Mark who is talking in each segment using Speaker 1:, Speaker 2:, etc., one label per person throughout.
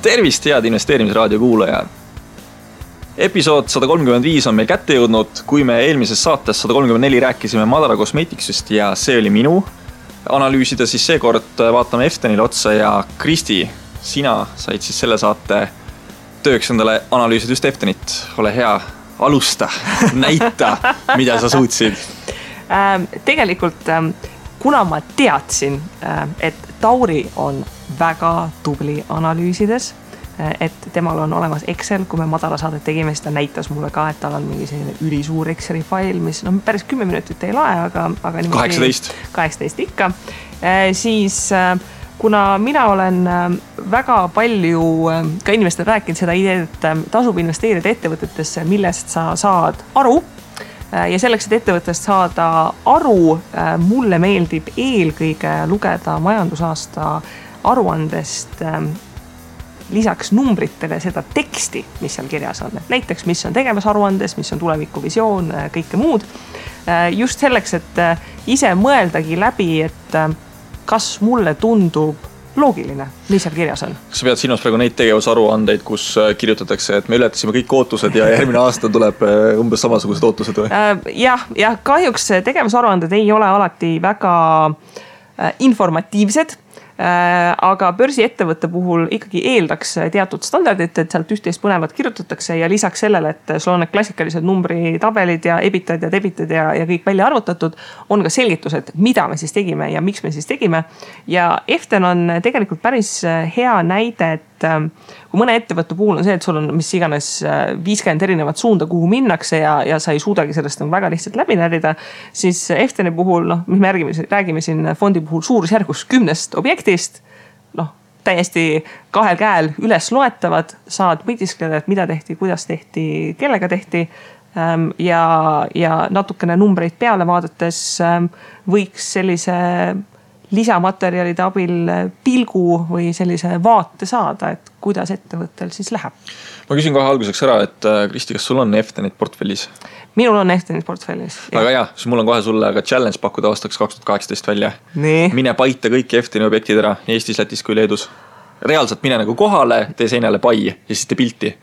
Speaker 1: Tervist, head investeerimisraadio kuulajad! Episood 135 on meil kätte jõudnud, kui me eelmises saates 134 rääkisime Madara Cosmeticsist ja see oli minu analüüsida, siis seekord vaatame Eftenile otsa ja Kristi, sina said siis selle saate tööks endale analüüsida just Eftenit. Ole hea, alusta, näita, mida sa suutsid.
Speaker 2: Tegelikult, kuna ma teadsin, et Tauri on väga tubli analüüsides, et temal on olemas Excel, kui me Madara saadet tegime, siis ta näitas mulle ka, et tal on mingi selline ülisuur Exceli fail, mis päris 10 minutit ei lae, aga 18 ikka. Siis kuna mina olen väga palju ka inimestele rääkinud seda ideed, et tasub investeerida ettevõtetesse, millest sa saad aru, ja selleks, et ettevõttest saada aru, mulle meeldib eelkõige lugeda majandusaasta aruandest lisaks numbritele seda teksti, mis seal kirjas on. Näiteks, mis on tegevusaruandes, mis on tulevikuvisioon, kõike muud. Just selleks, et ise mõeldagi läbi, et kas mulle tundub loogiline, mis seal kirjas on.
Speaker 1: Kas sa pead silmas praegu neid tegevusaruandeid, kus kirjutatakse, et me ületasime kõik ootused ja järgmine aasta tuleb umbes samasugused ootused või?
Speaker 2: Ja kahjuks tegevusaruanded ei ole alati väga informatiivsed, aga börsiettevõtte puhul ikkagi eeldaks teatud standardit, et sealt üht-teist põnevat kirjutatakse ja lisaks sellele, et sul on need klassikalised numbritabelid ja ebitad ja debitad ja kõik välja arvutatud, on ka selgitused, mida me siis tegime ja miks me siis tegime. Ja Eften on tegelikult päris hea näide, et kui mõne ettevõtte puhul on see, et sul on mis iganes 50 erinevat suunda, kuhu minnakse ja sa ei suudagi sellest väga lihtsalt läbi närida, siis Efteni puhul, mis me räägime siin fondi puhul suurusjärgus 10 objektist, täiesti kahel käel üles loetavad, saad mõtiskleda, et mida tehti, kuidas tehti, kellega tehti ja natukene numbreid peale vaadates võiks sellise lisamaterjalide abil pilgu või sellise vaate saada, et kuidas ettevõttel siis läheb.
Speaker 1: Ma küsin kohe alguseks ära, et Kristi, kas sul on Eftenit portfellis?
Speaker 2: Minul on Eftenit portfellis.
Speaker 1: Aga jah, siis mul on kohe sulle ka challenge pakkuda aastaks 2018 välja.
Speaker 2: Nii.
Speaker 1: Mine paita kõik Efteni objektid ära, nii Eestis, Lätis kui Leedus. Reaalselt mine nagu kohale, tee seinale pai ja siis tee pilti.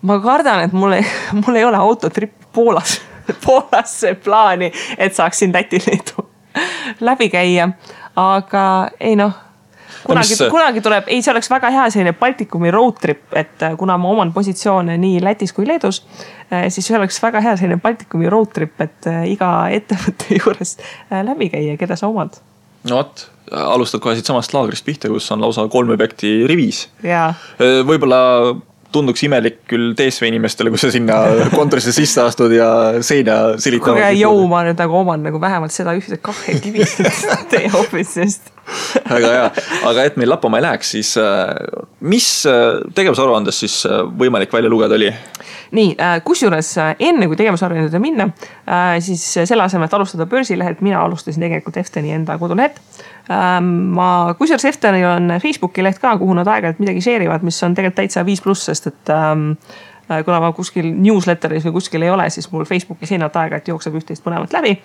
Speaker 2: Ma kardan, et mul ei ole autotrippi Poolasse plaani, et saaks siin Läti Leedu läbi käia, aga ei kunagi tuleb, see oleks väga hea selline Baltikumi road trip, et kuna ma oman positsioone nii Lätis kui Leedus, siis see oleks väga hea selline Baltikumi road trip, et iga ettevõtte juures läbi käia, keda sa omad.
Speaker 1: No võt, alustad kohe siit samast laagrist pihta, kus on lausa 3 objekti rivis.
Speaker 2: Ja.
Speaker 1: Võib-olla tunduks imelik küll TSV inimestele, kui sa sinna kontorisse sisse astud ja seina silitavad.
Speaker 2: Kuge jõu, ma nüüd oman vähemalt seda ühte 2 kivist teie office'ist.
Speaker 1: Väga hea, aga et meil lappama ei läheks, siis mis tegevusaruandes siis võimalik välja lugeda oli?
Speaker 2: Nii, kusjuures enne kui tegevusaruandele minna, siis selle asemel, et alustada börsilehelt, mina alustasin tegelikult Efteni enda kodulehed. Kusjuures Eftenil on Facebooki leht ka, kuhu nad aeg-ajalt midagi share'ivad, mis on tegelikult täitsa 5+, sest et kuna ma kuskil newsletteris või kuskil ei ole, siis mul Facebooki seinalt aeg-ajalt jookseb üht-teist põnevat läbi.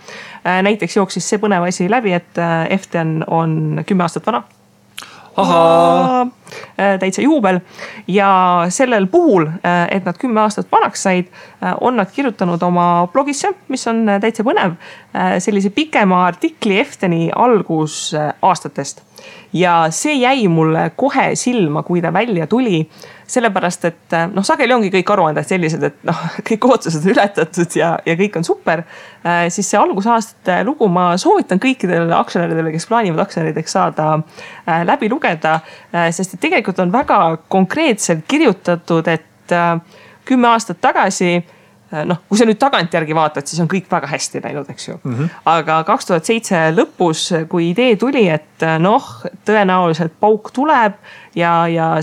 Speaker 2: Näiteks jooksis see põnev asi läbi, et Eften on 10 aastat vana. Täitsa juubel ja sellel puhul, et nad 10 aastat vanaks said, on nad kirjutanud oma blogisse, mis on täitsa põnev, sellise pikema artikli Efteni algus aastatest. Ja see jäi mulle kohe silma, kui ta välja tuli, sellepärast, et sageli ongi kõik aruanded sellised, et kõik ootused on ületatud ja kõik on super, siis see algusaastate lugu ma soovitan kõikidele aktsionäridele, kes plaanivad aktsionärideks saada läbi lugeda, sest et tegelikult on väga konkreetselt kirjutatud, et 10 aastat tagasi, kui sa nüüd tagantjärgi vaatad, siis on kõik väga hästi läinud, eks ju. Aga 2007 lõpus, kui idee tuli, et tõenäoliselt pauk tuleb ja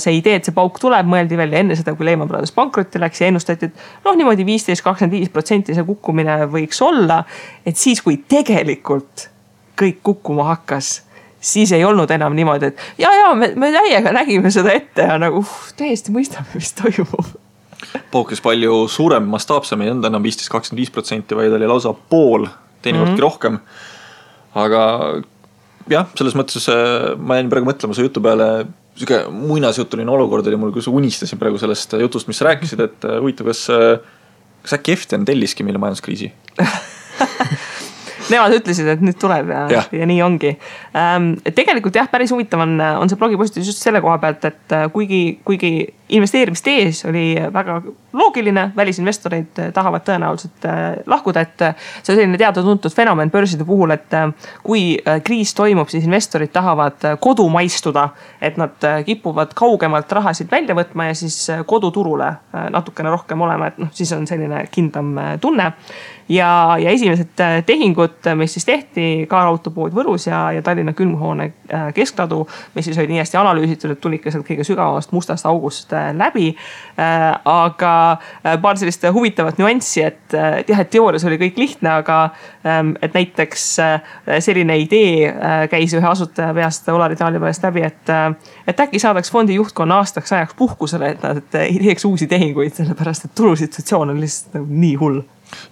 Speaker 2: see idee, et see pauk tuleb, mõeldi veel enne seda, kui Lehman Brothers pankrotti läks ja ennustati, et niimoodi 15-25% see kukkumine võiks olla, et siis, kui tegelikult kõik kukkuma hakkas, siis ei olnud enam niimoodi, et me täiega nägime seda ette ja täiesti mõistame, mis toimub.
Speaker 1: Paukis palju suurem, mastaapsem, ei olnud enam 15-25%, vaid oli lausa pool, teinekordki rohkem. Aga jah, selles mõttes ma jäin praegu mõtlema su jutu peale, siuke muinasjutuline olukord oli mul, kui sa unistasin praegu sellest jutust, mis sa rääkisid, et huvitav, kas äkki Eften telliski meile majanduskriisi?
Speaker 2: Nemad ütlesid, et nüüd tuleb ja nii ongi. Tegelikult jah, päris huvitav on see blogipostitus just selle koha pealt, et kuigi investeerimistees oli väga loogiline, välisinvestoreid tahavad tõenäoliselt lahkuda, et see on selline teada-tuntud fenomen börside puhul, et kui kriis toimub, siis investorid tahavad kodumaistuda, et nad kipuvad kaugemalt rahasid välja võtma ja siis koduturule natukene rohkem olema, et siis on selline kindlam tunne. Ja esimesed tehingud, mis siis tehti, kaarautopood Võrus ja Tallinna külmhoone keskladu, mis siis olid nii hästi analüüsitud, et tuli ikka sealt kõige sügavamast mustast august läbi. Aga paar sellist huvitavat nüanssi, et teoorias oli kõik lihtne, aga et näiteks selline idee käis ühe asutaja peast Olari Taalipäevast läbi, et äkki saadaks fondi juhtkonna aastaks ajaks puhkusele, et nad ei teeks uusi tehinguid, sellepärast et turusituatsioon on lihtsalt nii hull.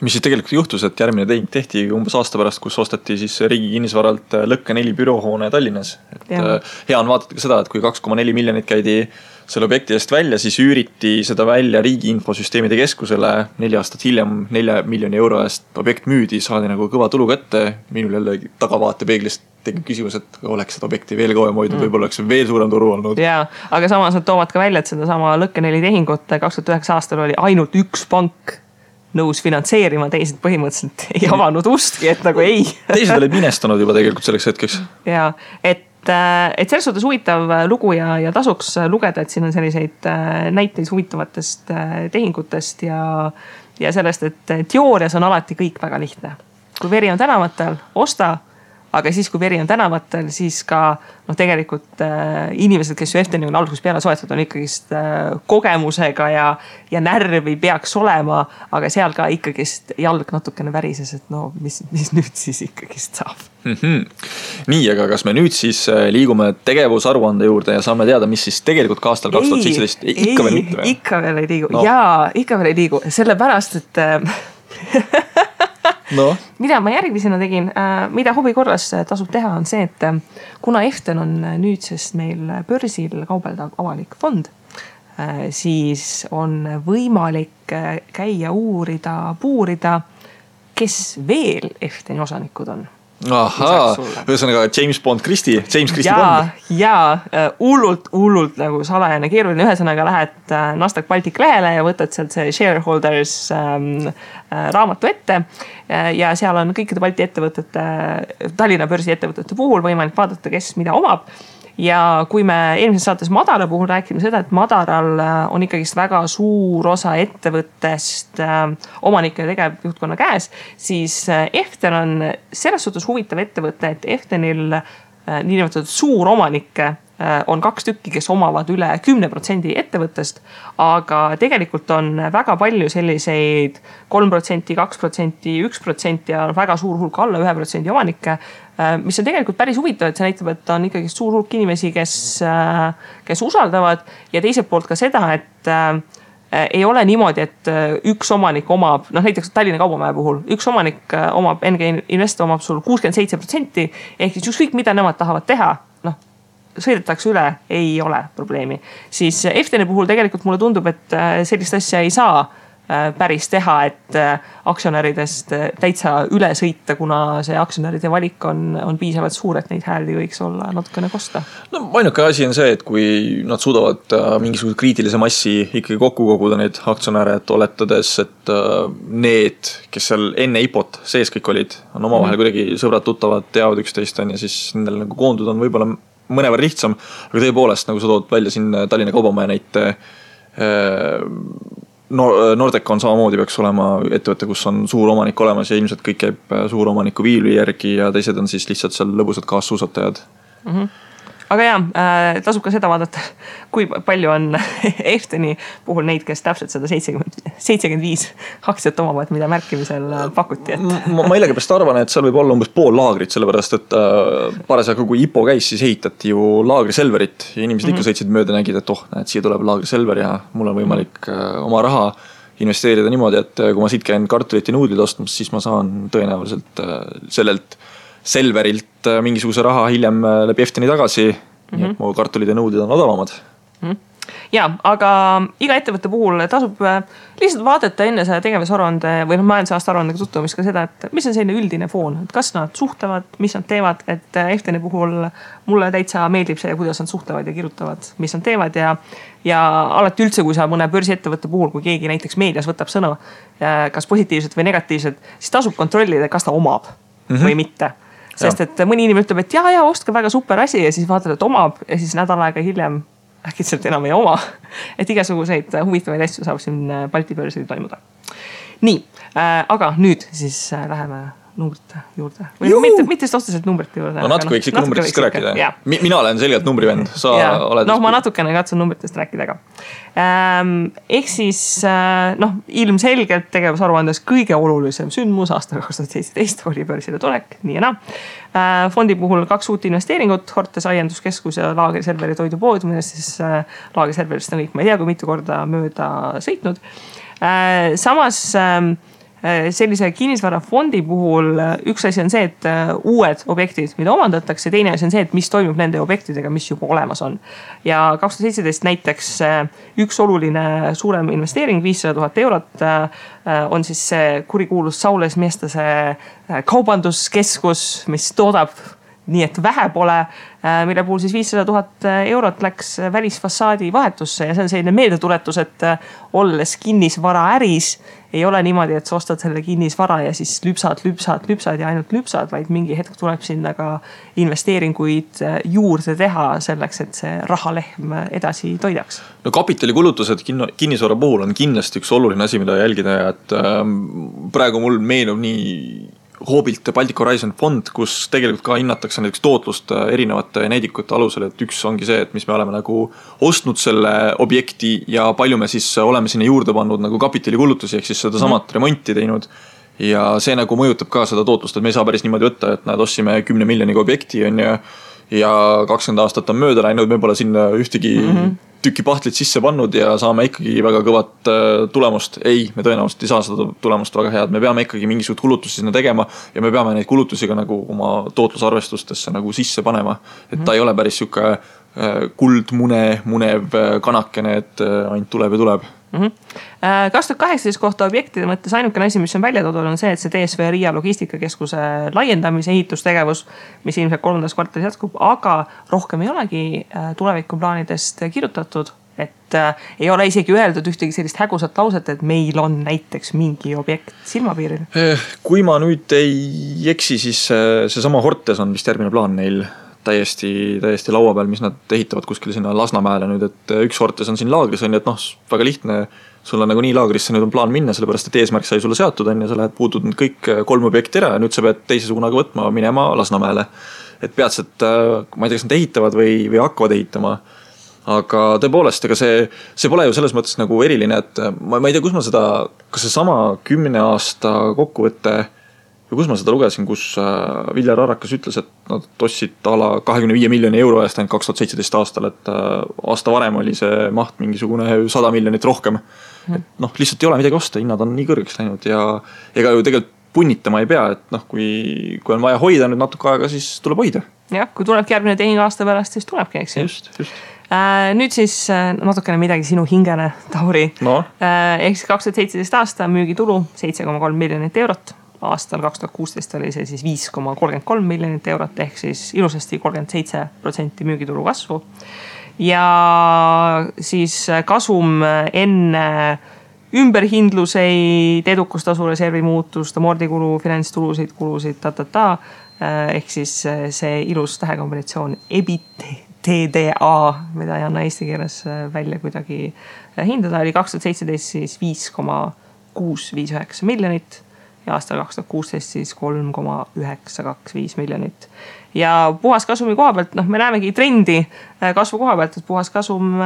Speaker 1: Mis siis tegelikult juhtus, et järgmine tehing tehti umbes aasta pärast, kus ostati siis riigi kinnisvaralt Lõkke 4 büroohoone Tallinnas. Hea on vaadata ka seda, et kui 2,4 miljonit käidi selle objekti eest välja, siis üüriti seda välja riigi infosüsteemide keskusele 4 aastat hiljem 4 miljoni euro eest objekt müüdi, saadi nagu kõva tulu kätte. Minul jälle tagavaatepeeglist tekib küsimus, et oleks seda objekti veel kauem hoidnud, võib-olla oleks veel suurem turu olnud.
Speaker 2: Jaa, aga samas nad toovad ka välja, et seda sama Lõkke 4 tehingut 2009 aastal oli ainult üks pank nõus finantseerima, teised põhimõtteliselt ei avanud ustki, et nagu ei.
Speaker 1: Teised olid minestunud juba tegelikult selleks hetkeks.
Speaker 2: Jaa, et selles suhtes huvitav lugu ja tasuks lugeda, et siin on selliseid näiteid huvitavatest tehingutest ja sellest, et teoorias on alati kõik väga lihtne. Kui veri on tänavatel, osta, aga siis kui veri on tänavatel, siis ka tegelikult inimesed, kes ju Efteni on algusest peale soetanud, on ikkagist kogemusega ja närvi peaks olema, aga seal ka ikkagist jalg natukene värises, et mis nüüd siis ikkagist saab.
Speaker 1: Nii, aga kas me nüüd siis liigume tegevusaruande juurde ja saame teada, mis siis tegelikult ka aastal 2017 ikka veel mitte?
Speaker 2: Ikka veel ei liigu. Jaa, ikka veel ei liigu. Sellepärast, et mida ma järgmisena tegin, mida huvi korras tasub teha, on see, et kuna Eften on nüüdsest meil börsil kaubeldav avalik fond, siis on võimalik käia puurida, kes veel Efteni osanikud on.
Speaker 1: Ahaa, ühesõnaga James Christie Bond.
Speaker 2: Jaa, hullult nagu salajane keeruline. Ühesõnaga lähed Nasdaq Baltic lehele ja võtad sealt see shareholders raamatu ette ja seal on kõikide Balti ettevõtete, Tallinna börsi ettevõtete puhul võimalik vaadata, kes mida omab. Ja kui me eelmises saates Madara puhul rääkime seda, et Madaral on ikkagist väga suur osa ettevõttest omanike ja tegevjuhtkonna käes, siis Eften on selles suhtes huvitav ettevõte, et Eftenil niinimetatud suur omanikke on 2 tükki, kes omavad üle 10% ettevõttest, aga tegelikult on väga palju selliseid 3%, 2%, 1% ja väga suur hulk alla 1% omanikke, mis on tegelikult päris huvitav, et see näitab, et on ikkagi suur hulk inimesi, kes usaldavad ja teiselt poolt ka seda, et ei ole niimoodi, et üks omanik omab, näiteks Tallinna Kaubamäe puhul, üks omanik omab, NG Invest omab sul 67%, ehk siis ükskõik mida nemad tahavad teha, sõidetakse üle, ei ole probleemi. Siis Efteni puhul tegelikult mulle tundub, et sellist asja ei saa päris teha, et aktsionäridest täitsa üle sõita, kuna see aktsionäride valik on piisavalt suur, et neid hääli võiks olla natukene kosta.
Speaker 1: Ainuke asi on see, et kui nad suudavad mingisuguse kriitilise massi ikkagi kokku koguda neid aktsionäre, et oletades, et need, kes seal enne IPOt sees kõik olid, on omavahel kuidagi sõbrad, tuttavad, teavad üksteist ja siis nendel nagu koondud on võib-olla mõnevõrra lihtsam, aga tõepoolest, nagu sa tood välja siin Tallinna Kaubamäe näite, Nordecon samamoodi peaks olema ettevõte, kus on suur omanik olemas ja ilmselt kõik käib suur omaniku viili järgi ja teised on siis lihtsalt seal lõbusad kaassuusatajad.
Speaker 2: Aga jah, tasub ka seda vaadata, kui palju on Efteni puhul neid, kes täpselt seda 75 aktsiat omavad, mida märkimisel pakuti.
Speaker 1: Ma millegipärast arvan, et seal võib olla umbes pool laagrit, sellepärast, et parasjagu kui IPO käis, siis ehitati ju laagriselverit ja inimesed ikka sõitsid mööda nägid, et näed, siia tuleb laagriselver ja mul on võimalik oma raha investeerida niimoodi, et kui ma siit käin kartulit ja nuudlid ostmas, siis ma saan tõenäoliselt sellelt Selverilt mingisuguse raha hiljem läbi Efteni tagasi nii et mu kartulid ja nõudid on odavamad.
Speaker 2: Ja, aga iga ettevõtte puhul tasub lihtsalt vaadata enne selle tegevusaruande või majandusaasta aruandega tutvumist ka seda, et mis on selline üldine foon, et kas nad suhtlevad, mis nad teevad, et Efteni puhul mulle täitsa meeldib see, kuidas nad suhtlevad ja kirjutavad, mis nad teevad ja alati üldse, kui sa mõne börsiettevõtte puhul, kui keegi näiteks meedias võtab sõna, kas positiivselt või negatiivselt, siis tasub kontrollida, kas ta omab või mitte. Sest et mõni inimene ütleb, et ja, ostke väga super asi ja siis vaatad, et omab ja siis nädal aega hiljem äkitselt enam ei oma. Et igasuguseid huvitavaid asju saab siin Balti börsil toimuda. Nii, aga nüüd siis läheme numbrite juurde. Või mitte otseselt numbrite juurde.
Speaker 1: No natuke võiks ikka numbritest ka rääkida. Mina olen selgelt numbrivend.
Speaker 2: Ma natukene katsun numbritest rääkida ka. Ehk siis ilmselgelt tegevusaruandes kõige olulisem sündmus aastal 2017 oli börsile tulek, nii ja naa. Fondi puhul 2 uut investeeringut, Hortes aianduskeskus ja Laagri Selveri toidupood, millest siis Laagri Selverist on kõik, ma ei tea, kui mitu korda mööda sõitnud. Samas sellise kinnisvarafondi puhul üks asi on see, et uued objektid, mida omandatakse, teine asi on see, et mis toimub nende objektidega, mis juba olemas on. Ja 2017 näiteks üks oluline suurem investeering, 500 000 eurot, on siis see kurikuulus Saules Miestase kaubanduskeskus, mis toodab nii, et vähe pole, mille puhul siis 500 000 eurot läks välisfassaadi vahetusse ja see on selline meeldetuletus, et olles kinnisvara äris, ei ole niimoodi, et sa ostad selle kinnisvara ja siis lüpsad ja ainult lüpsad, vaid mingi hetk tuleb sinna ka investeeringuid juurde teha selleks, et see rahalehm edasi toidaks.
Speaker 1: No kapitalikulutused kinnisvara puhul on kindlasti üks oluline asi, mida jälgida ja et praegu mul meenub nii Hoobilt Baltic Horizon fond, kus tegelikult ka hinnatakse näiteks tootlust erinevate näidikute alusel, et üks ongi see, et mis me oleme nagu ostnud selle objekti ja palju me siis oleme sinna juurde pannud nagu kapitalikulutusi, ehk siis seda samat remonti teinud. Ja see nagu mõjutab ka seda tootlust, et me ei saa päris niimoodi võtta, et näed, ostsime 10 miljoniga objekti ja 20 aastat on mööda läinud, me pole sinna ühtegi tüki pahtlit sisse pannud ja saame ikkagi väga kõvat tulemust. Ei, me tõenäoliselt ei saa seda tulemust väga head. Me peame ikkagi mingisugust kulutusi sinna tegema ja me peame neid kulutusi ka nagu oma tootlusarvestustesse nagu sisse panema. Et ta ei ole päris siuke munev kanakene, et ainult tuleb ja tuleb.
Speaker 2: 2018 kohta objektide mõttes ainukene asi, mis on välja toodud, on see, et see DSV Riia logistikakeskuse laiendamise ehitustegevus, mis ilmselt 3. kvartalis jätkub, aga rohkem ei olegi tulevikuplaanidest kirjutatud, et ei ole isegi öeldud ühtegi sellist hägusat lauset, et meil on näiteks mingi objekt silmapiiril.
Speaker 1: Kui ma nüüd ei eksi, siis see sama Hortes on vist järgmine plaan neil täiesti laua peal, mis nad ehitavad kuskil sinna Lasnamäele nüüd, et üks Hortes on siin laagris, on, et väga lihtne, sul on nagu nii laagrisse nüüd on plaan minna, sellepärast et eesmärk sai sulle seatud, on, ja sa lähed puutud nüüd kõik 3 objekti ära ja nüüd sa pead teise suunaga võtma minema Lasnamäele. Et peatselt, ma ei tea, kas nad ehitavad või hakkavad ehitama, aga tõepoolest, ega see pole ju selles mõttes nagu eriline, et ma ei tea, kus ma seda, kas see sama 10 aasta kokkuvõtte kus ma seda lugesin, kus Viljar Arakas ütles, et nad ostsid 25 miljoni euro eest ainult 2017 aastal, et aasta varem oli see maht mingisugune 100 miljonit rohkem. Et lihtsalt ei ole midagi osta, hinnad on nii kõrgeks läinud ja ega ju tegelikult punnitama ei pea, et kui on vaja hoida nüüd natuke aega, siis tuleb hoida.
Speaker 2: Jah, kui tulebki järgmine tehing aasta pärast, siis tulebki, eks.
Speaker 1: Just.
Speaker 2: Nüüd siis natukene midagi sinu hingele, Tauri.
Speaker 1: No.
Speaker 2: Ehk 2017 aasta müügitulu 7,3 miljonit eurot. Aastal 2016 oli see siis 5,33 miljonit eurot, ehk siis ilusasti 37% müügitulu kasvu. Ja siis kasum enne ümberhindluseid, edukustasu reservi muutust, amordikulu, finantstulusid, kulusid, ehk siis see ilus tähekombinatsioon EBITDA, mida ei anna eesti keeles välja kuidagi hindada, oli 2017 siis 5,659 miljonit. Ja aastal 2016 siis 3,925 miljonit. Ja puhas kasumi koha pealt, me näemegi trendi kasvu koha pealt, et puhas kasum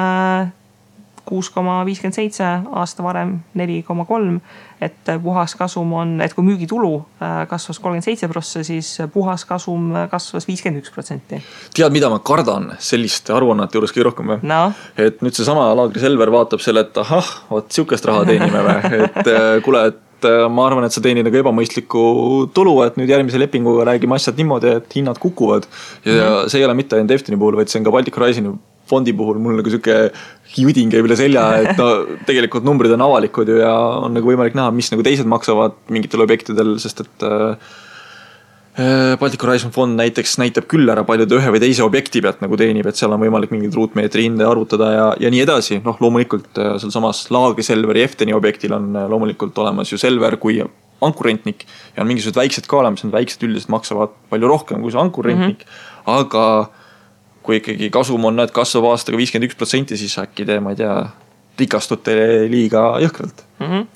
Speaker 2: 6,57, aasta varem 4,3, et puhas kasum on, et kui müügitulu kasvas 37%, siis puhas kasum kasvas 51%.
Speaker 1: Tead, mida ma kardan selliste aruannete juures kõige rohkem või?
Speaker 2: No.
Speaker 1: Et nüüd see sama Laagri Selver vaatab selle, et ahah, siukest raha teenime või, et kuule, et et ma arvan, et sa teenid nagu ebamõistlikku tulu, et nüüd järgmise lepinguga räägime asjad niimoodi, et hinnad kukuvad. Ja see ei ole mitte ainult Efteni puhul, vaid see on ka Baltic Horizoni fondi puhul mul nagu siuke judin käib üle selja, et no tegelikult numbrid on avalikud ju ja on nagu võimalik näha, mis nagu teised maksavad mingitel objektidel, sest et Baltic Horizon fond näiteks näitab küll ära palju ühe või teise objekti pealt nagu teenib, et seal on võimalik mingid ruutmeetri hinde arvutada ja nii edasi. Noh, loomulikult seal samas Laagri Selveri Efteni objektil on loomulikult olemas ju Selver kui ankurrentnik ja on mingisugused väiksed ka olemas, need väiksed üldiselt maksavad palju rohkem kui see ankurrentnik, aga kui ikkagi kasum on, et kasvab aastaga 51%, siis äkki te, ma ei tea, rikastute liiga jõhkralt.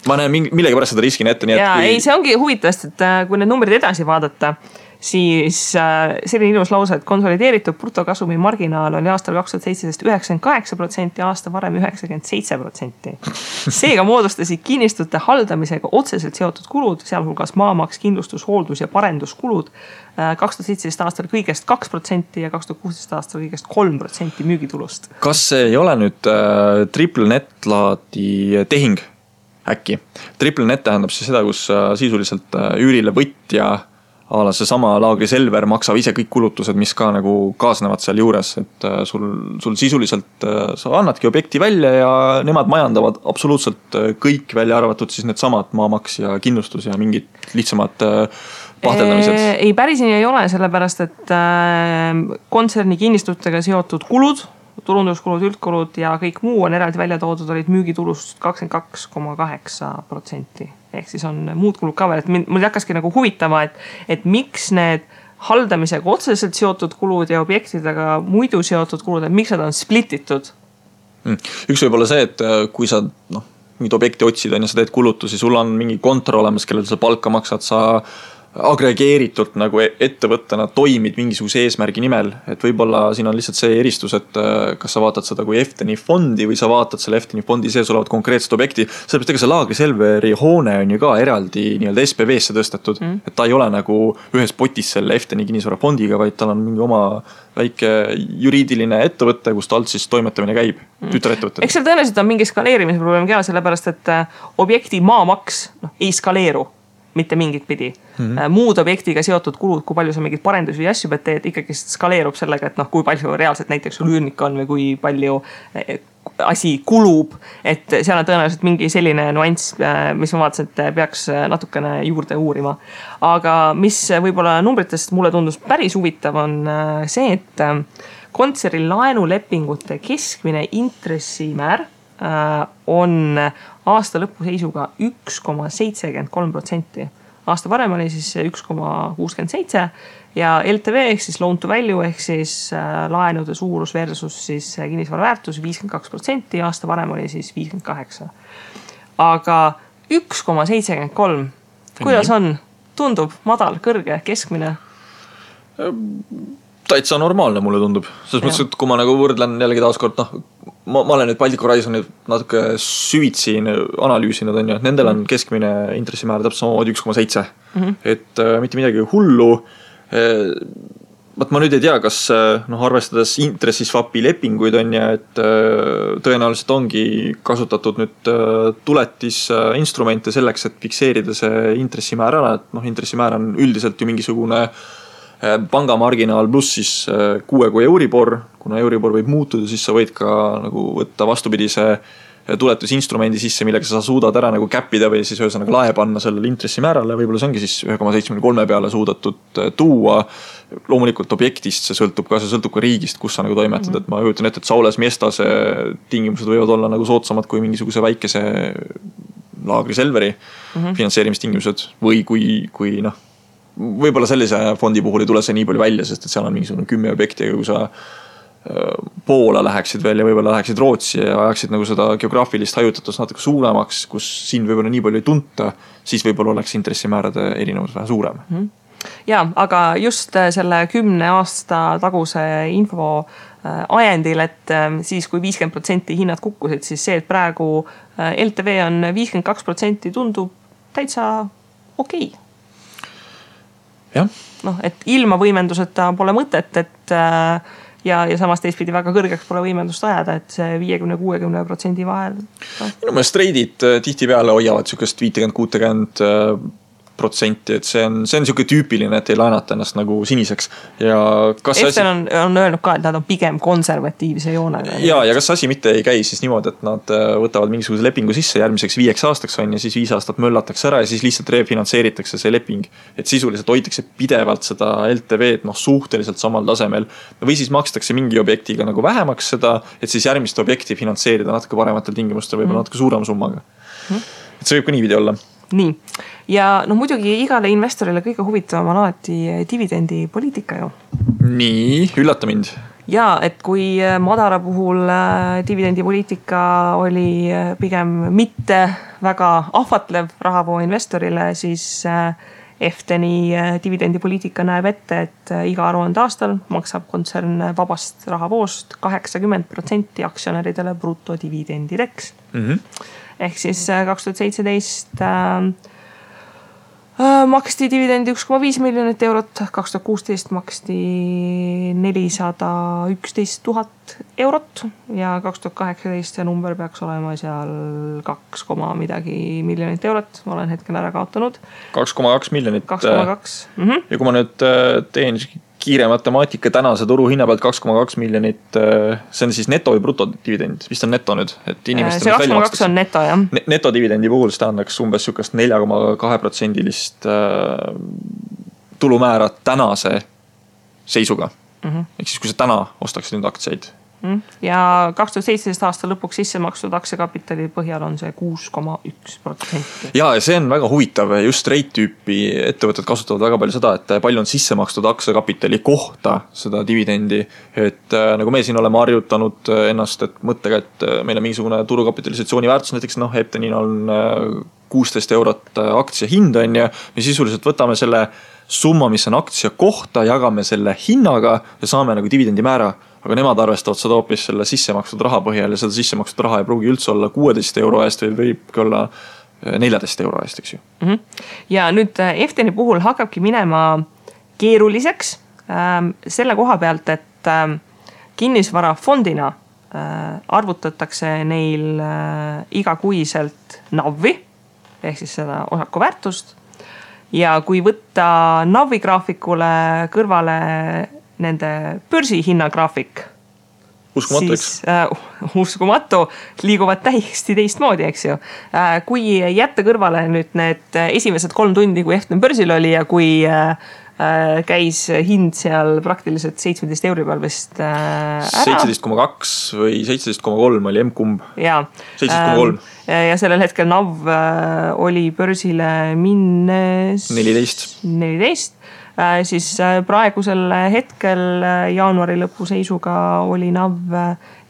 Speaker 1: Ma näen millegi pärast seda riskin ette.
Speaker 2: Ja ei, see ongi huvitavast, et kui need numbrid edasi vaadata, siis selline ilus lause, et konsolideeritud brutokasumi marginaal oli aastal 2017 98%, aasta varem 97%. Seega moodustasid kinnistute haldamisega otseselt seotud kulud, sealhulgas maamaks, kindlustus, hooldus ja parenduskulud 2017 aastal kõigest 2% ja 2016 aastal kõigest 3% müügitulust.
Speaker 1: Kas see ei ole nüüd triple net laadi tehing äkki? Triple net tähendab siis seda, kus sisuliselt üürile võtja ala see sama Laagri Selver maksab ise kõik kulutused, mis ka nagu kaasnevad seal juures, et sul sisuliselt sa annadki objekti välja ja nemad majandavad absoluutselt kõik välja arvatud siis need samad maamaks ja kindlustus ja mingid lihtsamad pahteldamised.
Speaker 2: Ei, päris nii ei ole, sellepärast, et kontserni kinnistutega seotud kulud, turunduskulud, üldkulud ja kõik muu on eraldi välja toodud, olid müügitulust 22,8%. Ehk siis on muud kulud ka veel, et mul hakkaski nagu huvitama, et miks need haldamisega otseselt seotud kulud ja objektidega muidu seotud kulud, et miks nad on splititud?
Speaker 1: Üks võib olla see, et kui sa mingid objekti otsid ja sa teed kulutusi, sul on mingi kontor olemas, kellel sa palka maksad, sa agregeeritult nagu ettevõttena toimid mingisuguse eesmärgi nimel, et võib-olla siin on lihtsalt see eristus, et kas sa vaatad seda kui Efteni fondi või sa vaatad selle Efteni fondi sees olevat konkreetset objekti, sellepärast ega see Laagri Selveri hoone on ju ka eraldi nii-öelda SPV-sse tõstetud, et ta ei ole nagu ühes potis selle Efteni kinnisvara fondiga, vaid tal on mingi oma väike juriidiline ettevõte, kus ta alt siis toimetamine käib, tütarettevõtted.
Speaker 2: Eks seal tõenäoliselt on mingi skaleerimise probleem ka, sellepärast et objekti maamaks ei skaleeru mitte mingit pidi. Muud objektiga seotud kulud, kui palju sa mingid parendusi ja asju pead teed, ikkagi skaleerub sellega, et kui palju reaalselt näiteks sul üürnik on või kui palju asi kulub, et seal on tõenäoliselt mingi selline nuanss, mis ma vaatasin, et peaks natukene juurde uurima. Aga mis võib-olla numbritest mulle tundus päris huvitav on see, et kontseri laenulepingute keskmine intressimäär on aasta lõpu seisuga 1,73%. Aasta varem oli siis 1,67 ja LTV ehk siis loan to value ehk siis laenude suurus versus siis kinnisvara väärtus 52%, aasta varem oli siis 58%. Aga 1,73, kuidas on? Tundub madal, kõrge, keskmine?
Speaker 1: Täitsa normaalne mulle tundub. Selles mõttes, et kui ma nagu võrdlen jällegi taaskord, ma olen nüüd Baltic Horizoni natuke süvitsi analüüsinud, on ju, et nendel on keskmine intressimäär täpselt samamoodi 1,7. Et mitte midagi hullu. Ma nüüd ei tea, kas arvestades intressiswapi lepinguid on ja, et tõenäoliselt ongi kasutatud nüüd tuletis instrumente selleks, et fikseerida see intressimäär ära, et intressimäär on üldiselt ju mingisugune pangamarginaal pluss siis 6 kui Euribor, kuna Euribor võib muutuda, siis sa võid ka nagu võtta vastupidise tuletusinstrumendi sisse, millega sa suudad ära nagu käppida või siis ühesõnaga lae panna sellele intressimäärale, võib-olla see ongi siis 1,73 peale suudatud tuua. Loomulikult objektist see sõltub ka riigist, kus sa nagu toimetad, et ma juhutan ette, et Saules Miestase tingimused võivad olla nagu soodsamad kui mingisuguse väikese Laagri Selveri finantseerimistingimused või kui võib-olla sellise fondi puhul ei tule see nii palju välja, sest et seal on mingisugune 10 objekti, kui sa Poola läheksid veel ja võib-olla läheksid Rootsi ja ajaksid nagu seda geograafilist hajutatust natuke suuremaks, kus siin võib-olla nii palju ei tunta, siis võib-olla oleks intressimäärade erinevus vähe suurem.
Speaker 2: Ja, aga just selle 10 aasta taguse info ajendil, et siis kui 50% hinnad kukkusid, siis see, et praegu LTV on 52% tundub täitsa okei. Et ilma võimenduseta pole mõtet, et ja samas teistpidi väga kõrgeks pole võimendust ajada, et see 50-60% vahel.
Speaker 1: Minu meelest treidid tihtipeale hoiavad sükest 50-60%, et see on siuke tüüpiline, et ei laenata ennast nagu siniseks. Ja kas
Speaker 2: Eften on öelnud ka, et nad on pigem konservatiivse joonega.
Speaker 1: Ja kas asi mitte ei käi siis niimoodi, et nad võtavad mingisuguse lepingu sisse järgmiseks 5 aastaks on ja siis 5 aastat möllatakse ära ja siis lihtsalt refinantseeritakse see leping. Et sisuliselt hoitakse pidevalt seda LTV-d suhteliselt samal tasemel või siis makstakse mingi objektiga nagu vähemaks seda, et siis järgmist objekti finantseerida natuke parematel tingimustel, võib-olla natuke suurema summaga. Et see võib ka niividi olla.
Speaker 2: Nii. Ja muidugi igale investorile kõige huvitavam on alati dividendipoliitika ju.
Speaker 1: Nii, üllata mind.
Speaker 2: Ja, et kui Madara puhul dividendipoliitika oli pigem mitte väga ahvatlev rahavoo investorile, siis Efteni dividendipoliitika näeb ette, et iga aruande aastal maksab kontsern vabast rahavoost 80% aktsionäridele brutodividendideks. Ehk siis 2017 maksti dividendi 1,5 miljonit eurot, 2016 maksti 411 000 eurot ja 2018 see number peaks olema seal 2, midagi miljonit eurot. Ma olen hetkel ära kaotanud.
Speaker 1: 2,2 miljonit.
Speaker 2: 2,2.
Speaker 1: Ja kui ma nüüd teen kiire matemaatika tänase turu hinna pealt 2,2 miljonit, see on siis neto või brutodividend, vist on neto nüüd, et
Speaker 2: see 2,2 on neto, jah.
Speaker 1: Netodividendi puhul see tähendaks umbes sükast 4,2% tulumäära tänase seisuga. Ehk siis kui sa täna ostaksid nüüd aktsiaid.
Speaker 2: Ja 2017 aasta lõpuks sisse makstud aktsiakapitali põhjal on see 6,1%.
Speaker 1: Ja see on väga huvitav, just rate-tüüpi ettevõtted kasutavad väga palju seda, et palju on sisse makstud aktsiakapitali kohta seda dividendi, et nagu me siin oleme harjutanud ennast, et mõttega, et meil on mingisugune turukapitalisatsiooni väärtus, näiteks Eptenil on 16 eurot aktsia hind on ja me sisuliselt võtame selle summa, mis on aktsia kohta, jagame selle hinnaga ja saame nagu dividendi määra. Aga nemad arvestavad seda hoopis selle sissemakstud raha põhjal ja seda sissemakstud raha ei pruugi üldse olla 16 euro eest või võibki olla 14 euro eest, eks ju.
Speaker 2: Ja nüüd Efteni puhul hakkabki minema keeruliseks selle koha pealt, et kinnisvarafondina arvutatakse neil igakuiselt NAV-i ehk siis seda osaku väärtust. Ja kui võtta NAV-i graafikule kõrvale nende börsihinnagraafik,
Speaker 1: uskumatu,
Speaker 2: siis uskumatu, liiguvad täiesti teistmoodi, eks ju. Kui jätta kõrvale nüüd need esimesed 3 tundi, kui Eften börsil oli ja kui käis hind seal praktiliselt 17 euri peal vist ära.
Speaker 1: 17,2 või 17,3 oli M-kumb.
Speaker 2: Ja.
Speaker 1: 17,3.
Speaker 2: Ja sellel hetkel NAV oli börsile minnes 14. Siis praegusel hetkel jaanuari lõpu seisuga oli NAV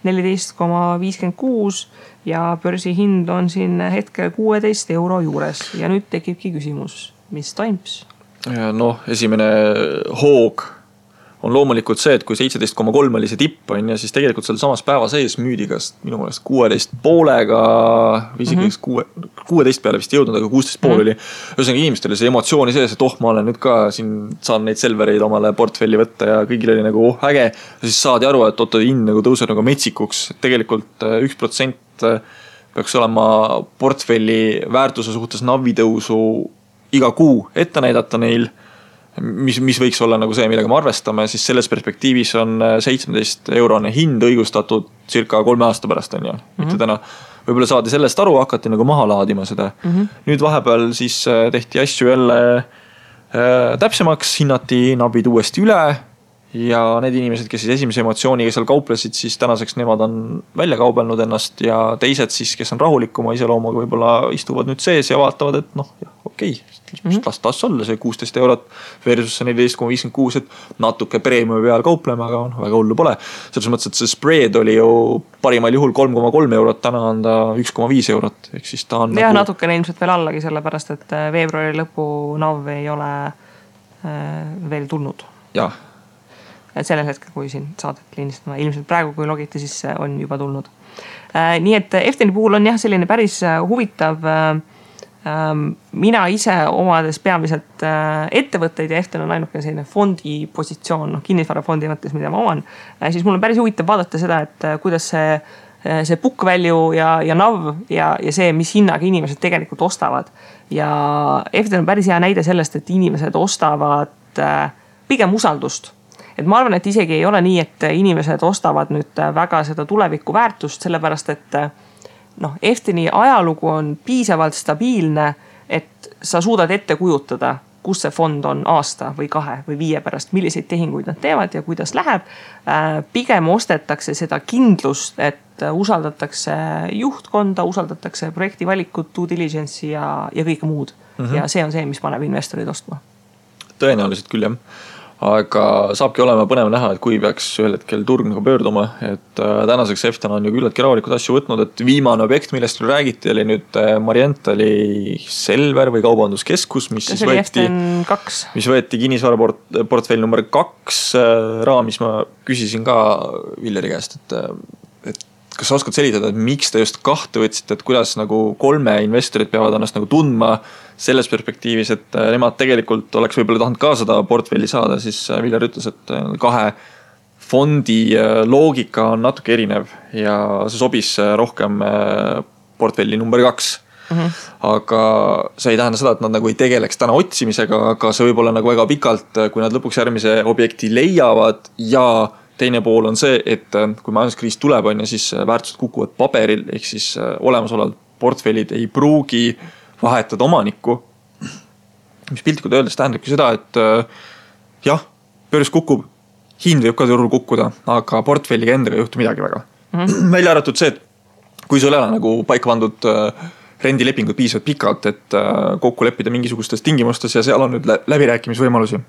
Speaker 2: 14,56 ja börsi hind on siin hetkel 16 euro juures. Ja nüüd tekibki küsimus, mis toims?
Speaker 1: Esimene hoog on loomulikult see, et kui 17,3 oli see tipp on ja siis tegelikult seal samas päeva sees müüdi kas minu mõelest 16,5-ga või isegi 16 peale vist jõudnud, aga 16,5 oli. Ühesõnaga inimestel oli see emotsiooni sees, et ma olen nüüd ka siin saan neid selvereid omale portfelli võtta ja kõigil oli nagu äge. Ja siis saadi aru, et hind nagu tõuseb nagu metsikuks. Tegelikult 1% peaks olema portfelli väärtuse suhtes NAV-i tõusu iga kuu ette näidata neil, mis võiks olla nagu see, millega me arvestame, siis selles perspektiivis on 17 eurone hind õigustatud circa 3 aasta pärast on ju, mitte täna. Võib-olla saadi sellest aru, hakati nagu maha laadima seda. Nüüd vahepeal siis tehti asju jälle täpsemaks, hinnati NAV-id uuesti üle ja need inimesed, kes siis esimese emotsiooniga seal kauplesid, siis tänaseks nemad on välja kaubelnud ennast ja teised siis, kes on rahulikuma iseloomuga, võib-olla istuvad nüüd sees ja vaatavad, et okei, las olla see 16 eurot versus 14,56, et natuke preemiumi peal kaupleme, aga väga hullu pole. Selles mõttes, et see spread oli ju parimal juhul 3,3 eurot, täna on ta 1,5 eurot. Ehk siis ta on
Speaker 2: ja natukene ilmselt veel allagi, sellepärast, et veebruari lõpu NAV ei ole veel tulnud.
Speaker 1: Jah.
Speaker 2: Sellel hetkel, kui siin saadet liinistama, ilmselt praegu, kui logiti, siis on juba tulnud. Nii et Efteni puhul on jah selline päris huvitav mina ise omades peamiselt ettevõtteid ja Eften on ainuke selline fondi positsioon, kinnisvarafondi mõttes, mida ma oman, siis mul on päris huvitav vaadata seda, et kuidas see book value ja NAV ja see, mis hinnaga inimesed tegelikult ostavad. Ja Eften on päris hea näide sellest, et inimesed ostavad pigem usaldust. Et ma arvan, et isegi ei ole nii, et inimesed ostavad nüüd väga seda tuleviku väärtust, sellepärast et Efteni ajalugu on piisavalt stabiilne, et sa suudad ette kujutada, kus see fond on aasta või 2 või 5 pärast, milliseid tehinguid nad teevad ja kuidas läheb. Pigem ostetakse seda kindlust, et usaldatakse juhtkonda, usaldatakse projekti valikut, due diligence'i ja kõike muud. Ja see on see, mis paneb investorid ostma.
Speaker 1: Tõenäoliselt küll, jah. Aga saabki olema põnev näha, et kui peaks ühel hetkel turg nagu pöörduma, et tänaseks Eften on ju küllaltki rahulikud asju võtnud, et viimane objekt, millest räägiti, oli nüüd Marientali Selver või kaubanduskeskus, mis võeti kinnisvaraportfell number 2 raamis. Ma küsisin ka Villeri käest, et kas sa oskad selitada, et miks te just 2 võtsite, et kuidas nagu 3 investorid peavad ennast nagu tundma selles perspektiivis, et nemad tegelikult oleks võib-olla tahtnud ka seda portfelli saada, siis Viljar ütles, et 2 fondi loogika on natuke erinev ja see sobis rohkem portfelli number 2. Aga see ei tähenda seda, et nad nagu ei tegeleks täna otsimisega, aga see võib olla nagu väga pikalt, kui nad lõpuks järgmise objekti leiavad ja teine pool on see, et kui majanduskriis tuleb, siis väärtused kukuvad paberil, ehk siis olemasolevad portfellid ei pruugi vahetada omanikku, mis piltlikult öeldes tähendabki seda, et jah, börs kukub, hind võib ka turul kukkuda, aga portfelliga endaga ei juhtu midagi väga. Välja arvatud see, et kui sul ei ole nagu paika pandud rendilepingud piisavalt pikalt, et kokku leppida mingisugustes tingimustes ja seal on nüüd läbirääkimisvõimalusi.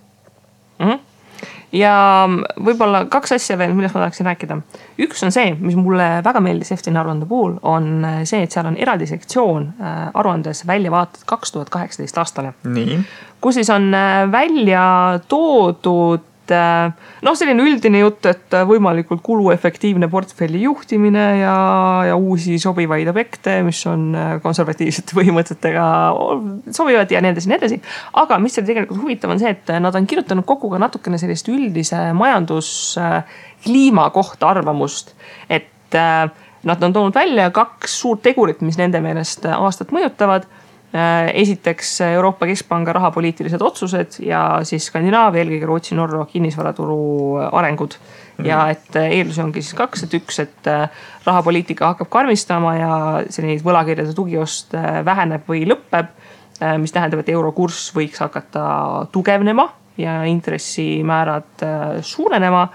Speaker 2: Ja võib-olla 2 asja veel, millest ma tahaksin rääkida. Üks on see, mis mulle väga meeldis Efteni aruande puhul, on see, et seal on eraldi sektsioon aruandes välja vaated 2018 aastale.
Speaker 1: Nii.
Speaker 2: Kus siis on välja toodud selline üldine jutt, et võimalikult kuluefektiivne portfelli juhtimine ja uusi sobivaid objekte, mis on konservatiivsete põhimõtetega sobivad ja nii edasi. Aga mis seal tegelikult huvitav on see, et nad on kirjutanud kokku ka natukene sellist üldise majanduskliima kohta arvamust, et nad on toonud välja 2 suurt tegurit, mis nende meelest aastat mõjutavad. Esiteks Euroopa Keskpanga rahapoliitilised otsused ja siis Skandinaavia, eelkõige Rootsi, Norra kinnisvaraturu arengud. Ja et eeldusi ongi siis 2, et 1, et rahapoliitika hakkab karmistama ja selline võlakirjade tugiost väheneb või lõppeb, mis tähendab, et eurokurss võiks hakata tugevnema ja intressimäärad suurenema,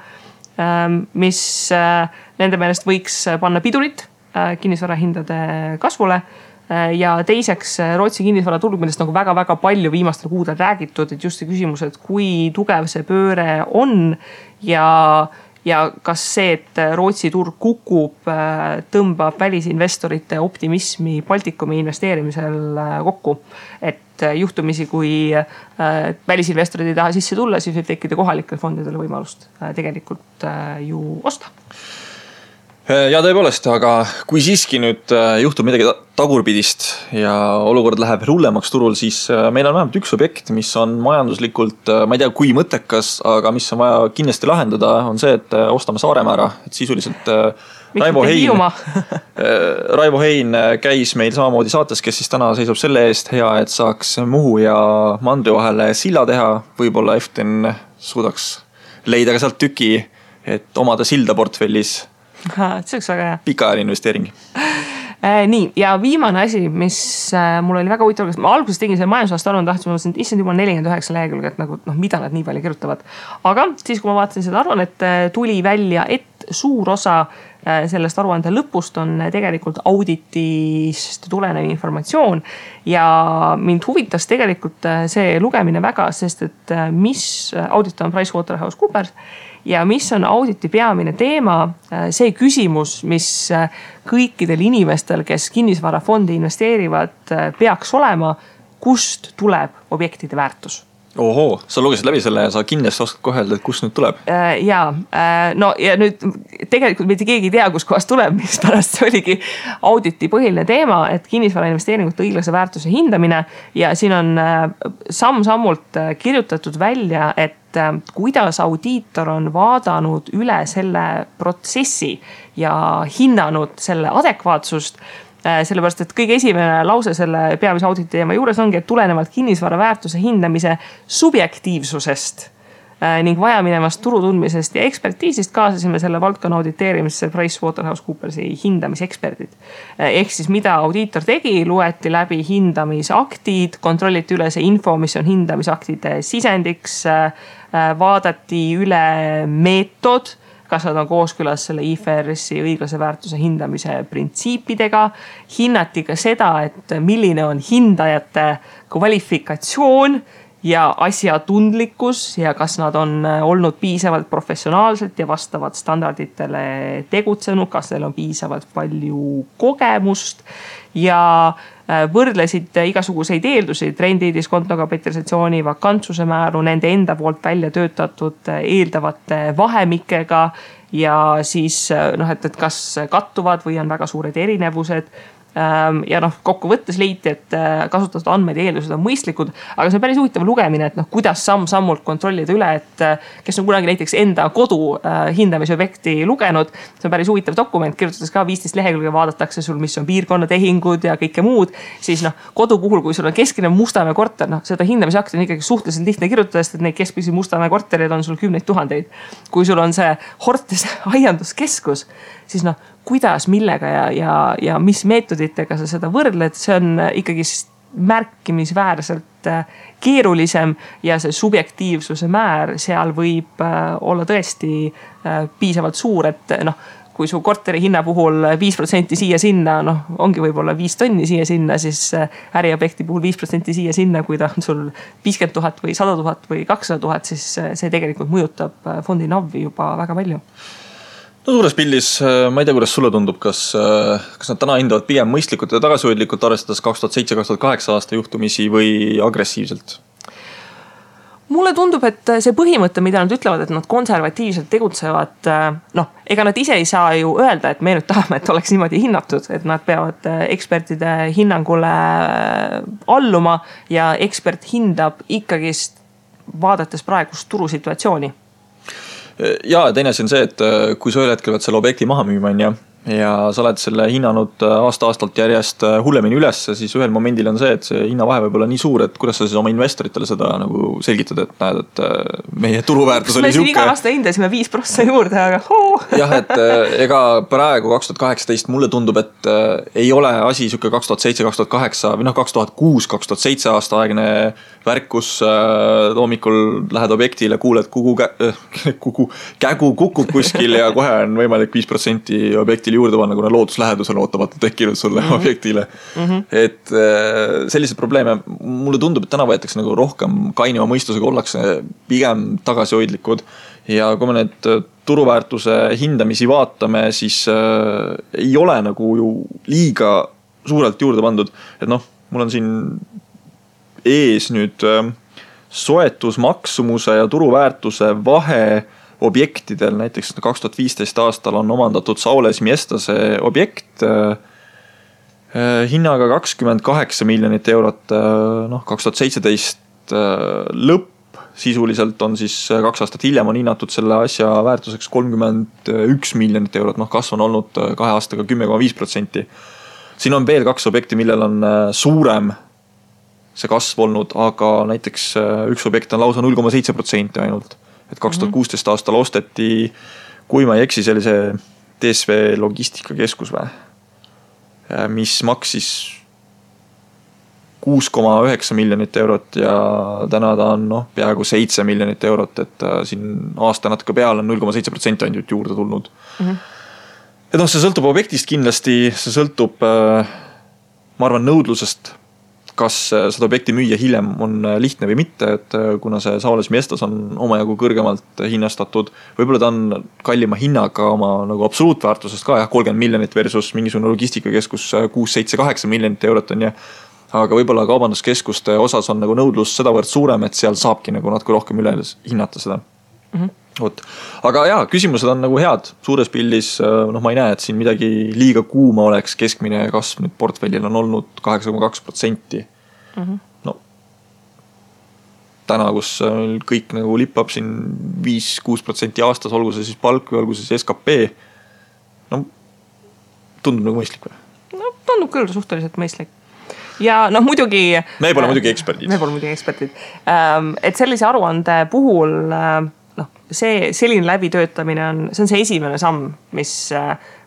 Speaker 2: mis nende meelest võiks panna pidurit kinnisvarahindade kasvule. Ja teiseks Rootsi kinnisvaraturg, millest nagu väga-väga palju viimastel kuudel räägitud, et just see küsimus, et kui tugev see pööre on ja kas see, et Rootsi turg kukub, tõmbab välisinvestorite optimismi Baltikumi investeerimisel kokku. Et juhtumisi, kui välisinvestorid ei taha sisse tulla, siis võib tekkida kohalikel fondidele võimalust tegelikult ju osta.
Speaker 1: Ja tõepoolest, aga kui siiski nüüd juhtub midagi tagurpidist ja olukord läheb hullemaks turul, siis meil on vähemalt 1 objekt, mis on majanduslikult, ma ei tea kui mõttekas, aga mis on vaja kindlasti lahendada, on see, et ostame Saaremaa ära. Et sisuliselt Raivo Hein käis meil samamoodi saates, kes siis täna seisab selle eest hea, et saaks Muhu ja Mandri vahele silla teha. Võib-olla Eften suudaks leida ka sealt tüki, et omada silda portfellis.
Speaker 2: See oleks väga hea.
Speaker 1: Pikaajaline investeering.
Speaker 2: Nii, ja viimane asi, mis mul oli väga huvitav, ma alguses tegin selle majandusaasta aruande, tahtsin, et issand juba 49 lehekülge, et nagu, mida nad nii palju kirjutavad. Aga siis, kui ma vaatasin seda aruannet, tuli välja, et suur osa sellest aruande lõpust on tegelikult auditist tulenev informatsioon ja mind huvitas tegelikult see lugemine väga, sest et mis audit on PricewaterhouseCoopers ja mis on auditi peamine teema, see küsimus, mis kõikidel inimestel, kes kinnisvarafondi investeerivad, peaks olema, kust tuleb objektide väärtus.
Speaker 1: Ohoo, sa lugesid läbi selle ja sa kindlasti oskad kohe öelda, et kust nüüd tuleb?
Speaker 2: No ja nüüd tegelikult mitte keegi ei tea, kus kohast tuleb, mis pärast see oligi auditi põhiline teema, et kinnisvara investeeringute õiglase väärtuse hindamine ja siin on samm-sammult kirjutatud välja, et kuidas audiitor on vaadanud üle selle protsessi ja hinnanud selle adekvaatsust. Sellepärast, et kõige esimene lause selle peamise auditi teema juures ongi, et tulenevalt kinnisvara väärtuse hindamise subjektiivsusest ning vajaminevast turutundmisest ja ekspertiisist kaasasime selle valdkonna auditeerimisse PricewaterhouseCoopersi hindamiseksperdid. Ehk siis mida audiitor tegi, loeti läbi hindamisaktid, kontrolliti üle see info, mis on hindamisaktide sisendiks, vaadati üle meetod, kas nad on kooskõlas selle IFRS-i õiglase väärtuse hindamise printsiipidega. Hinnati ka seda, et milline on hindajate kvalifikatsioon ja asjatundlikkus ja kas nad on olnud piisavalt professionaalselt ja vastavad standarditele tegutsenud, kas neil on piisavalt palju kogemust ja võrdlesid igasuguseid eeldusi, trendi, diskonto, kapitalisatsiooni, vakantsuse määru, nende enda poolt välja töötatud eeldavate vahemikega ja siis et kas kattuvad või on väga suured erinevused. Ja kokkuvõttes leiti, et kasutatud andmed ja eeldused on mõistlikud, aga see on päris huvitav lugemine, et kuidas samm-sammult kontrollida üle, et kes on kunagi näiteks enda kodu hindamisobjekti lugenud, see on päris huvitav dokument, kirjutades ka 15 lehekülge, vaadatakse sul, mis on piirkonnatehingud ja kõike muud, siis kodu puhul, kui sul on keskmine Mustamäe korter, seda hindamisakti on ikkagi suhteliselt lihtne kirjutada, sest et neid keskmisi Mustamäe korterid on sul 10 000. Kui sul on see Hortes aianduskeskus, siis kuidas, millega ja mis meetoditega sa seda võrdled, see on ikkagi märkimisväärselt keerulisem ja see subjektiivsuse määr seal võib olla tõesti piisavalt suur, et kui su korteri hinna puhul 5% siia-sinna, ongi võib-olla 5 tonni siia-sinna, siis äriobjekti puhul 5% siia-sinna, kui ta on sul 50 000 või 100 000 või 200 000, siis see tegelikult mõjutab fondi NAV-i juba väga palju.
Speaker 1: No suures pildis, ma ei tea, kuidas sulle tundub, kas nad täna hindavad pigem mõistlikult ja tagasihoidlikult arvestades 2007-2008 aasta juhtumisi või agressiivselt?
Speaker 2: Mulle tundub, et see põhimõte, mida nad ütlevad, et nad konservatiivselt tegutsevad, ega nad ise ei saa ju öelda, et me nüüd tahame, et oleks niimoodi hinnatud, et nad peavad ekspertide hinnangule alluma ja ekspert hindab ikkagist vaadates praegust turusituatsiooni.
Speaker 1: Ja teine asi on see, et kui sa ühel hetkel pead selle objekti maha müüma ja sa oled selle hinnanud aasta-aastalt järjest hullemini üles, siis ühel momendil on see, et see hinnavahe võib olla nii suur, et kuidas sa siis oma investoritele seda nagu selgitad, et näed, et meie turuväärtus oli
Speaker 2: siuke. Me iga aasta hindasime 5% juurde, aga
Speaker 1: Jah, et ega praegu 2018 mulle tundub, et ei ole asi siuke 2007-2008 või 2006-2007 aasta aegne värk, kus hommikul lähed objektile, kuuled kägu kukub kuskil ja kohe on võimalik 5% objektile juurde panna, kuna looduslähedusel ootamata tekkinud sulle objektile. Et sellised probleeme, mulle tundub, et täna võetakse nagu rohkem kainima mõistusega, ollakse pigem tagasihoidlikud ja kui me need turuväärtuse hindamisi vaatame, siis ei ole nagu ju liiga suurelt juurde pandud, et mul on siin ees nüüd soetusmaksumuse ja turuväärtuse vahe objektidel, näiteks 2015 aastal on omandatud Saules Miestase objekt hinnaga 28 miljonit eurot, 2017 lõpp sisuliselt on siis 2 aastat hiljem on hinnatud selle asja väärtuseks 31 miljonit eurot, kasv on olnud 2 aastaga 10,5%. Siin on veel 2 objekti, millel on suurem see kasv olnud, aga näiteks üks objekt on lausa 0,7% ainult. Et 2016 aastal osteti, kui ma ei eksi, see oli see DSV logistikakeskus või, mis maksis 6,9 miljonit eurot ja täna ta on peaaegu 7 miljonit eurot, et siin aasta natuke peal on 0,7% ainult juurde tulnud. Et see sõltub objektist kindlasti, see sõltub, ma arvan, nõudlusest, kas seda objekti müüa hiljem on lihtne või mitte, et kuna see Saules Miestas on omajagu kõrgemalt hinnastatud, võib-olla ta on kallima hinnaga oma nagu absoluutväärtusest ka, 30 miljonit versus mingisugune logistikakeskus 6, 7, 8 miljonit eurot on ja aga võib-olla kaubanduskeskuste osas on nagu nõudlus sedavõrd suurem, et seal saabki nagu natuke rohkem üle hinnata seda. Oot. Aga jaa, küsimused on nagu head. Suures pildis, ma ei näe, et siin midagi liiga kuuma oleks. Keskmine kasv nüüd portfellil on olnud 8,2%. No, täna, kus kõik nagu lippab siin 5-6% aastas, olgu see siis palk või olgu see siis SKP, no tundub nagu mõistlik või?
Speaker 2: No tundub küll suhteliselt mõistlik. Ja muidugi...
Speaker 1: Me pole muidugi eksperdid.
Speaker 2: Et sellise aruande puhul... see selline läbitöötamine see on see esimene samm,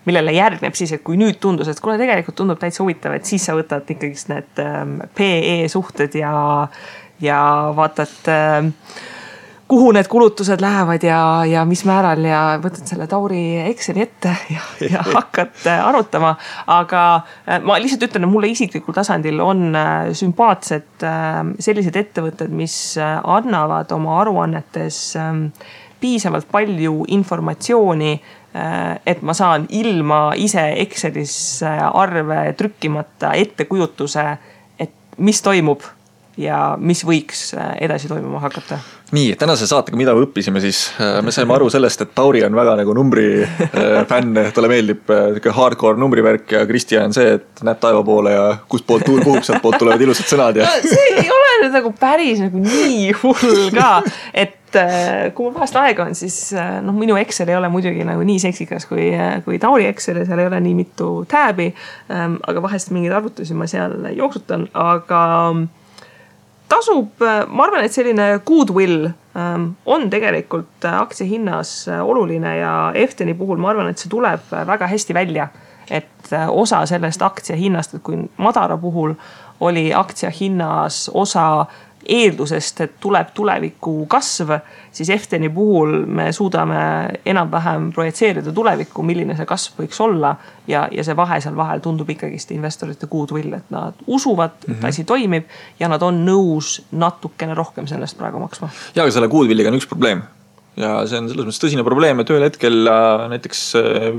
Speaker 2: millele järgneb siis, et kui nüüd tundus, et kuule tegelikult tundub täitsa huvitav, et siis sa võtad ikkagi need PE suhted ja vaatad, kuhu need kulutused lähevad ja mis määral ja võtad selle Tauri Exceli ette ja hakkad arutama. Aga ma lihtsalt ütlen, et mulle isiklikul tasandil on sümpaatsed sellised ettevõtted, mis annavad oma aruannetes piisavalt palju informatsiooni, et ma saan ilma ise Excelis arve trükkimata ettekujutuse, et mis toimub ja mis võiks edasi toimuma hakata.
Speaker 1: Nii, tänase saatega, mida me õppisime siis, me saime aru sellest, et Tauri on väga nagu numbri fänn, talle meeldib hardcore numbrivärk ja Kristjan on see, et näeb taeva poole ja kust poolt tuul puhub, sealt poolt tulevad ilusad sõnad. Ja...
Speaker 2: No, see ei ole nüüd nagu päris nagu nii hull ka, et kui mul vahest aega on, siis minu Excel ei ole muidugi nagu nii seksikas kui Tauri Excel ja seal ei ole nii mitu tääbi, aga vahest mingeid arvutusi ma seal jooksutan, aga tasub, ma arvan, et selline goodwill on tegelikult aktsia hinnas oluline ja Efteni puhul ma arvan, et see tuleb väga hästi välja, et osa sellest aktsia hinnast, et kui Madara puhul oli aktsia hinnas osa eeldusest, et tuleb tuleviku kasv, siis Efteni puhul me suudame enam-vähem projitseerida tulevikku, milline see kasv võiks olla ja see vahe seal vahel tundub ikkagist investorite goodwill, et nad usuvad, et asi toimib ja nad on nõus natukene rohkem sellest praegu maksma.
Speaker 1: Ja, aga selle goodwilliga on üks probleem. Ja see on selles mõttes tõsine probleem, et ühel hetkel näiteks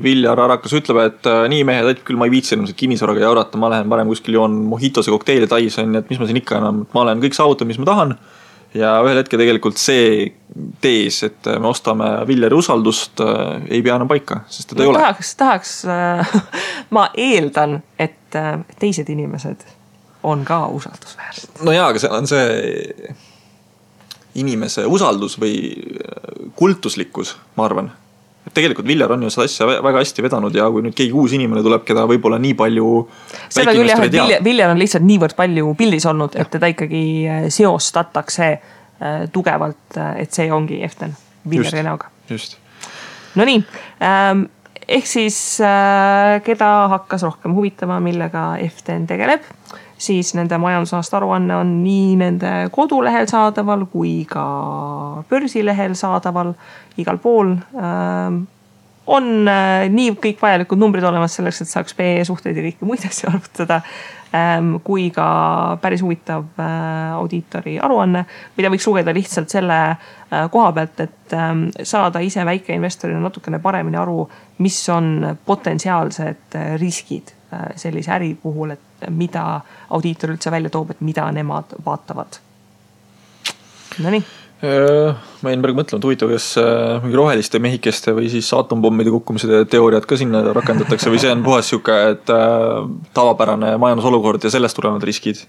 Speaker 1: Viljar Arakas ütleb, et nii mehed, et küll ma ei viitsi enam kinnisvaraga jaurata, ma lähen parem kuskil joon mojitose kokteili tais on, et mis ma siin ikka enam, ma olen kõik saavutab, mis ma tahan. Ja ühel hetkel tegelikult see tees, et me ostame Viljari usaldust, ei pea enam paika, sest teda ei ole.
Speaker 2: Tahaks ma eeldan, et teised inimesed on ka usaldusväärsed.
Speaker 1: No jaa, aga see on see inimese usaldus või kultuslikkus, ma arvan. Et tegelikult Viljar on ju seda asja väga hästi vedanud ja kui nüüd keegi uus inimene tuleb, keda võib-olla nii palju
Speaker 2: seda küll jah, et Viljar on lihtsalt niivõrd palju pildis olnud, et teda ikkagi seostatakse tugevalt, et see ongi Eften Viljari näoga.
Speaker 1: Just.
Speaker 2: No nii, ehk siis keda hakkas rohkem huvitama, millega Eften tegeleb, siis nende majandusaasta aruanne on nii nende kodulehel saadaval kui ka börsilehel saadaval igal pool. On nii kõik vajalikud numbrid olemas selleks, et saaks PE suhteid ja kõiki muid asju arvutada, kui ka päris huvitav audiitori aruanne, mida võiks lugeda lihtsalt selle koha pealt, et saada ise väikeinvestorina natukene paremini aru, mis on potentsiaalsed riskid sellise äri puhul, et mida audiitor üldse välja toob, et mida nemad vaatavad. No nii.
Speaker 1: Ma jäin praegu mõtlema, et huvitav, kas mingi roheliste mehikeste või siis atompommide kukkumise teooriad ka sinna rakendatakse või see on puhas siuke, et tavapärane majandusolukord ja sellest tulevad riskid?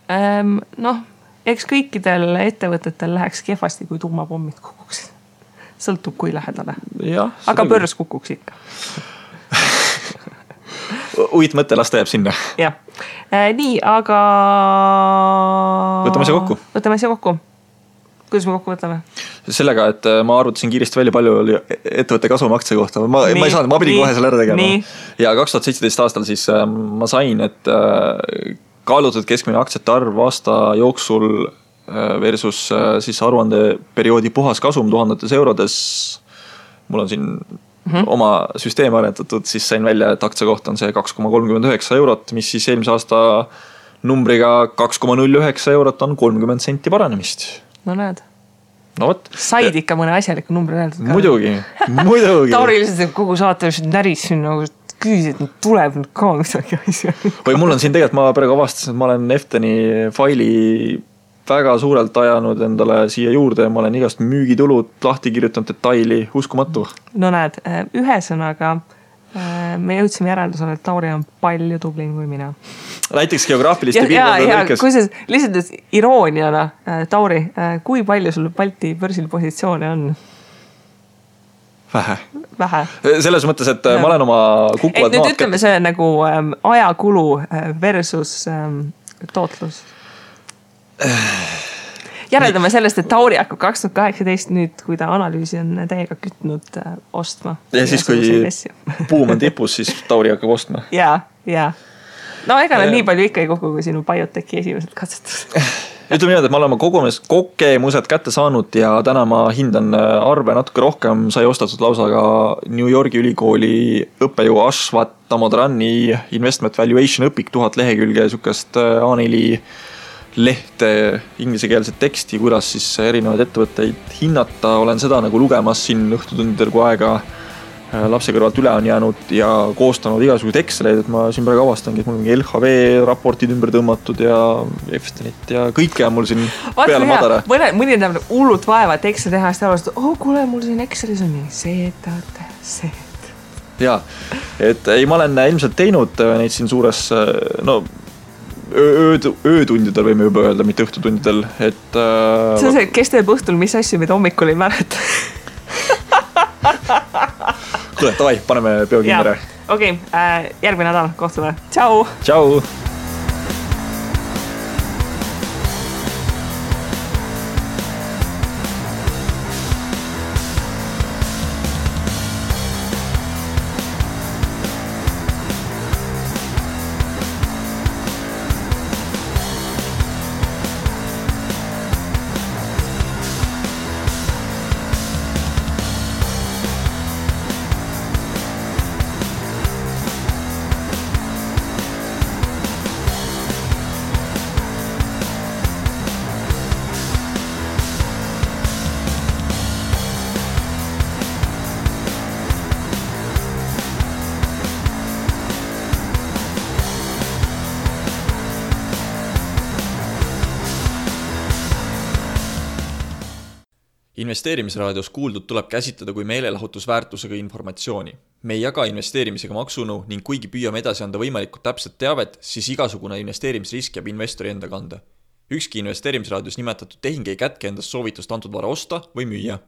Speaker 2: Eks kõikidel ettevõtetel läheks kehvasti, kui tuumapommid kukuksid. Sõltub kui lähedale. Ja, aga börs kukuks ikka.
Speaker 1: Uit mõte, las ta jääb sinna.
Speaker 2: Jah. Nii, aga...
Speaker 1: Võtame see kokku.
Speaker 2: Kuidas me kokku võtame?
Speaker 1: Sellega, et ma arvutasin kiiresti välja palju oli ettevõtte kasvumaktsia kohta. Ma ei saanud, ma pidin kohe selle ära tegema. Ja 2017 aastal siis ma sain, et kaalutud keskmine aktsiate arv aasta jooksul versus siis aruandeperioodi puhas kasum 1000 eurodes. Mul on siin oma süsteem arendatud, siis sain välja, et aktsia kohta on see 2,39 eurot, mis siis eelmise aasta numbriga 2,09 eurot on 30 senti paranemist.
Speaker 2: No näed.
Speaker 1: No võt.
Speaker 2: Said ikka mõne asjaliku numbri öeldud ka.
Speaker 1: Muidugi.
Speaker 2: Tauri lihtsalt kogu saate näris siin nagu küüs, et tuleb nüüd ka midagi asja.
Speaker 1: Või mul on siin tegelikult, ma praegu avastasin, et ma olen Efteni faili väga suurelt ajanud endale siia juurde ja ma olen igast müügitulud lahti kirjutanud detaili, uskumatu.
Speaker 2: No näed, ühesõnaga me jõudsime järeldusele, et Tauri on palju tublim kui mina.
Speaker 1: Näiteks geograafiliste piirkondade lõikes.
Speaker 2: Kui see lihtsalt irooniana, Tauri, kui palju sul Balti börsil positsioone on? Vähe.
Speaker 1: Selles mõttes, et ma olen oma kukuvad
Speaker 2: nüüd ütleme see nagu ajakulu versus tootlus. Järeldame sellest, et Tauri hakkab 2018 nüüd, kui ta analüüsi on täiega kütnud ostma.
Speaker 1: Ja siis, kui buum on tipus, siis Tauri hakkab ostma.
Speaker 2: Ja. No ega nii palju ikka ei kokku, kui sinu bioteki esimesed katsetused.
Speaker 1: Ütleme niimoodi, et ma olen kogemused kätte saanud ja täna ma hindan arve natuke rohkem. Sai ostatud lausa ka New Yorgi ülikooli õppejõu Ashwat Damodarani Investment Valuation õpik 1000 lehekülge sukast A4 lehte ingliskeelset teksti, kuidas siis erinevaid ettevõtteid hinnata. Olen seda nagu lugemas siin õhtutundidel, kui aega lapse kõrvalt üle on jäänud ja koostanud igasugused Exceleid, et ma siin praegu avastangi, et mul on LHV raportid ümber tõmmatud ja Eftenit ja kõike on mul siin peale madara.
Speaker 2: Mõni on hullult vaeva, et Excel teha, siis arvast, kuule, mul siin Excelis on nii see.
Speaker 1: Jaa, et ei, ma olen ilmselt teinud neid siin suures, öötundidel võime juba öelda, mitte õhtutundidel, et
Speaker 2: see on see, kes teeb õhtul, mis asju, mida hommikul ei mäleta.
Speaker 1: Kuule, tavai, paneme peo kindere.
Speaker 2: Okei, järgmine nädal kohtume. Tšau!
Speaker 1: Tšau! Investeerimisraadios kuuldud tuleb käsitleda kui meelelahutusväärtusega informatsiooni. Me ei jaga investeerimisega maksunu ning kuigi püüame edasi anda võimalikult täpset teavet, siis igasugune investeerimisrisk jääb investori enda kanda. Ükski investeerimisraadios nimetatud tehing ei kätke endast soovitust antud vara osta või müüa.